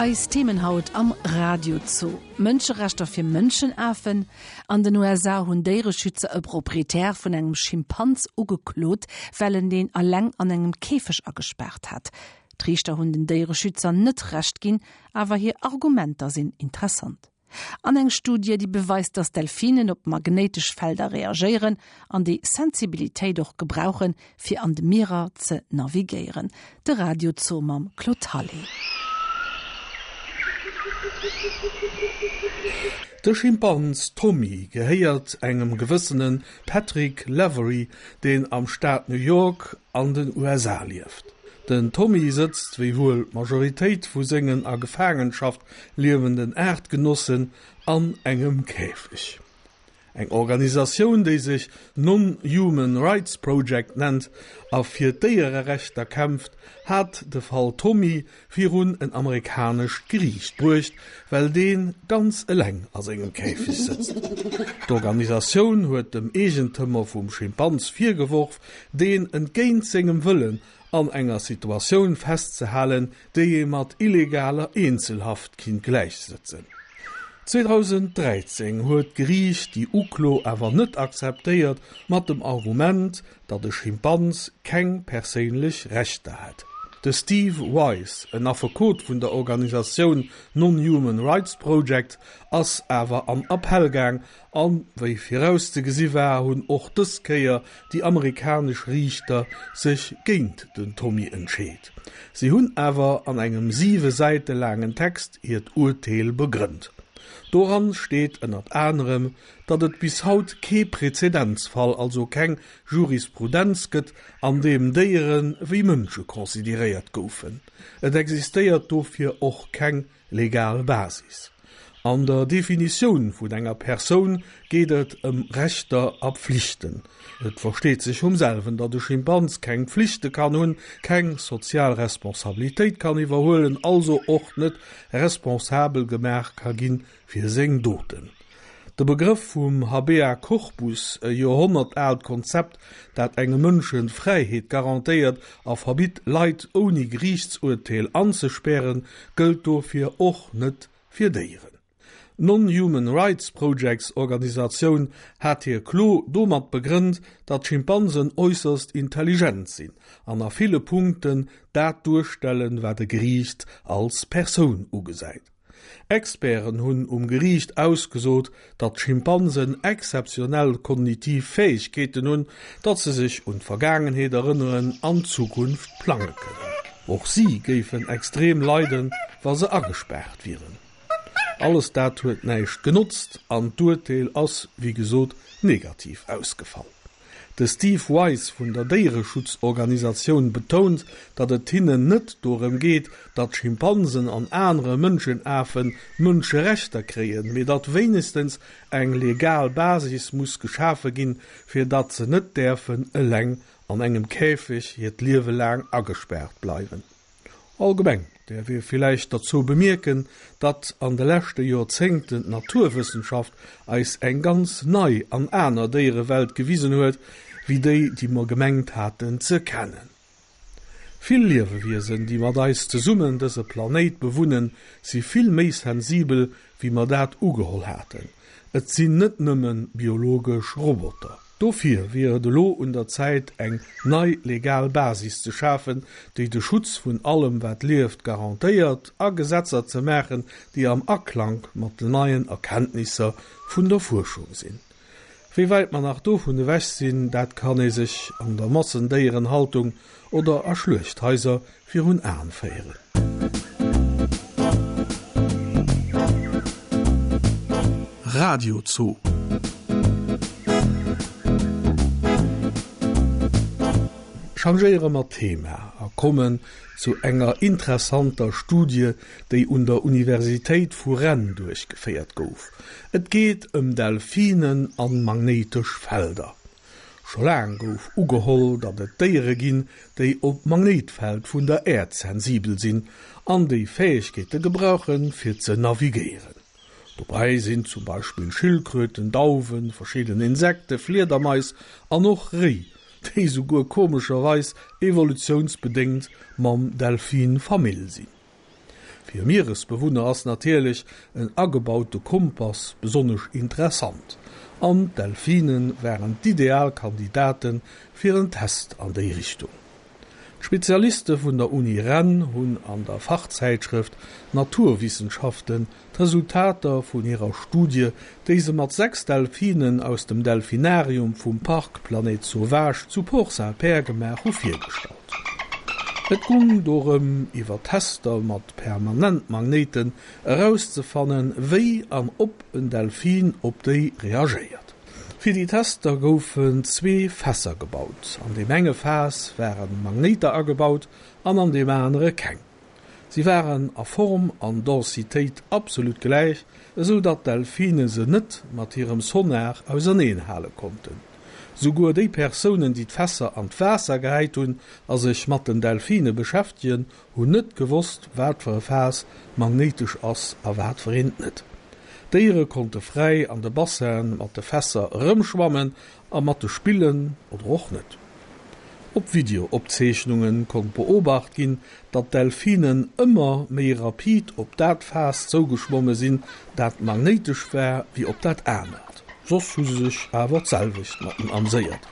Eis Themen haut am Radiozoo, Mënscherechter fir Mënschenafen, An den USA hunn Déiereschützer e Proprietär vun engem Schimpans ugeklot, well en deen eleng an engem Käfeg agespaart hat. D'Riichter hunn den Déiereschützer net Recht ginn, awer hir Argumenter sinn interessant. An eng Studie, déi beweist, datt Delfinen op magnéitesch Felder reagéieren an déi Sensibilitéit och gebrauchen, fir an de Mierer ze navigéieren. De Radio Zoo mam Claude Hallé. De Schimpans Tommy gehéiert engem gewëssene Patrick Lavery, deen am Staat New York an den USA lieft. Den Tommy sëtzt, wéi wuel d'Majoritéit vu sengen a Gefaangenschaft liewenden Aartgenossen, an engem Käfeg. Eng Organisatioun, déi sech Non-Human Rights Project nennt a fir d'Déiererechter kämpft, hat de Fall Tommy virun en amerikanescht Geriicht bruecht, well dee ganz eleng a sengem Käfeg sëtzt. D'Organisatioun huet dem Eegentëmer vum Schimpans virgeworf, deen entgéint sengem Wëllen an enger Situatioun festzehalen, déi ee mat illegaler Eenzelhaft kinnt gläichsëtzen. 2013 huet d'Geriicht déi Uklo awer net akzeptéiert, mat dem Argument, datt e Schimpans keng perséinlech Rechter hätt. De Steve Wise, en Affekot vun der Organisatioun Non-Human Rights Project, ass awer an Appell gaang An wéi virauszegesi war, hunn och dës Kéier déi amerikanesch Riichter sech géint den Tommy entscheet. Si hunn awer an engem siwe Säite laangen Text hiert Urteel begrënnt. Doran steet ënnert anerem, datt et bis haut kee Prezedenzfall, also keng Jurisprudenz gëtt, an deem Déiere wéi Mënsche consideréiert goufen. Et existéiert dofir och keng Legal Basis. An der Definitioun vun enger Persoun geet et ëm Rechter a Pflichten. Et versteet sech vum selwen, datt e Schimpans keng Pflichte kann hunn, keng sozial Responsabilitéit kann iwwerhuelen, also och net responsabel gemaach ka ginn fir seng Doten. De Begrëff vum Habea Corpus, e joerhonnertaalt Konzept, dat engem Mënschen d'Fräiheet garantéiert a verbitt, Leit ouni Geriichtsurteel anzespären, gëllt dofir och net fir Déieren. D'Non-Human Rights Projects Organisatioun hat hir Klo domat begrënnt, datt Schimpansen äusserst intelligent sinn an a ville Punkten dat duerstellen, wat e Geriicht als Persoun ugesäit. Experten hunn um Geriicht ausgesot, datt Schimpansen exzeptionell kognitiv Fäegkeeten hunn, datt se sech un d'Vergaangenheet erënneren an d'Zukunft plange kënnen. Och si géifen extrem leiden, wa se agespaart wieren. Alles dat huet näischt genotzt an d'Urteel ass, wéi gesot, negativ ausgefall. De Steve Wise vun der Déiereschutzorganisatioun betount, datt et hinnen net dorëm geet, datt Schimpansen an anere Mënschenafen Mënscherechter kréien, mee datt wéinegstens eng legal Basis muss geschafe ginn, fir datt se net däerfen eleng an engem Käfeg hiert Liewe laang agespaart bleiwen. Allgemeng däerf ee villäicht derzou bemierken, datt an de leschte Joerzéngten d'Naturwëssenschaft eis eng ganz nei an aner Déierewelt gewisen huet, wéi déi, déi mer gemengt haten ze kennen. Vill Liewewiesen, déi mat eis zesummen dëse Planéit bewunnen, si vill méi sensibel, wéi mer dat ugeholl haten. Et sinn net nëmme biologesch Roboter. Dofir wier et elo un der Zäit eng nei legal Basis ze schafen, déi de Schutz vun allem wat lieft garantéiert, a Gesetzer ze maachen, déi am Aklank mat den neien Erkenntnisser vun der Fuerschung sinn. Wéi wäit mer nach dovun ewech sinn, dat kann ee sech an der Massendéierenhaltung oder a Schluechthaiser virun Aen féieren. Radio Zoo. Changéiere mer Thema a kommen zu enger interessanter Studie, déi un der Universitéit vu Rennes duerchgeféiert gouf. Et geet ëm Delfinen an magnéitesch Felder. Scho laang gouf ugeholl, datt et Déiere ginn, déi op d'Magnéitfeld vun der Äerd sensibel sinn an déi Fäegkeete gebrauchen, fir ze navigéieren. Dobäi sinn zum Beispill Schildkröten, Dauwen, verschidden Insekte, Fliedermais an och Réi, déi souguer komescherweis evolutiounsbedéngt mam Delfin Famill sinn. Fir Mieresbewunner ass natierlech en agebaute Kompass besonnesch interessant, an d'Delfine waren d'ideal Kandidate fir en Test an déi Richtung. D'Spezialiste vun der Uni Rennes hunn an der Fachzäitschrëft Naturwissenschaften d'Resultater vun hirer Studie, déi se mat 6 Delfinen aus dem Delfinarium vum Parc Planète Sauvage zu Port-Saint-Père gemaach hu, virgestallt. Et gung dorëm, iwwer Tester mat Permanentmagnéiten erauszefannen, wéi an ob en Delfin op déi reagéiert. Fir déi Tester goufen zwee Fässer gebaut. An deem enge Faass ware Magnéiter agebaut an an deem anere keng. Si waren a Form an Densitéit absolut gläich, esou datt d'Delfine se net mat hirem Sonar auserneen hale konnten. Souguer déi Persounen, déi d'Fässer an d'Waasser gehäit hunn a sech mat den Delfine beschäftegen, hunn net gewosst, wat fir e Faass magnéitesch ass a wat fir eent net. D'Déiere konnte fräi an de Bassinen mat de Fässer erëmschwammen a mat de spillen oder och net. Op Videoopzeechnunge konnt beobacht ginn, datt d'Delfinen ëmmer méi rapid op dat Faass zougeschwomme sinn, dat magnéitesch war, wéi op dat anert. Soss hu se sech awer d'selwecht mat en amséiert.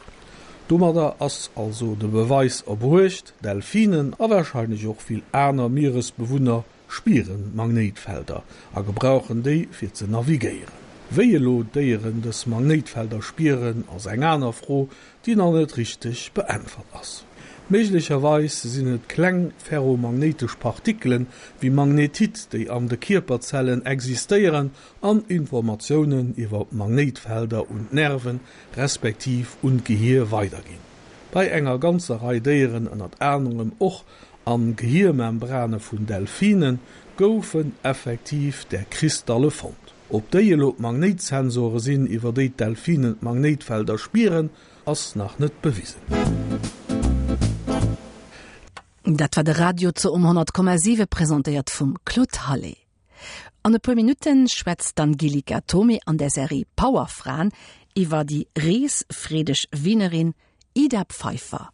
Domadder ass also de Beweis erbruecht, Delfinen a warscheinlech och vill aner Mieresbewunner spieren Magnéitfelder a gebrauchen déi fir ze navigéieren. Wéi elo d'Déieren dës Magnéitfelder spieren ass eng aner Fro, déi nach net richteg beäntwert ass. Méiglecherweis sinn et kleng ferromagnéitesch Partikelen, wéi Magnetit, déi an de Kierperzellen existéieren an Informatiounen iwwer Magnéitfelder un d'Nerven, respektiv un d'Gehier weiderginn. Bei enger ganzer Rei Déieren, ënnert anerem och An Gehiermembrane vun Delfinen goufen effektiv där Kristalle fonnt. Ob déi elo d'Magnéitsensore sinn, iwwer déi d'Delfinen d'Magnéitfelder spieren, ass nach net bewisen. Dat war de Radiozoo um 100,7, presentéiert vum Claude Hallé. An e puer Minutten schwätzt d'Angelika Thomé an der Serie Powerfraen iwwer déi reesfreedeg Wienerin Ida Pfeiffer.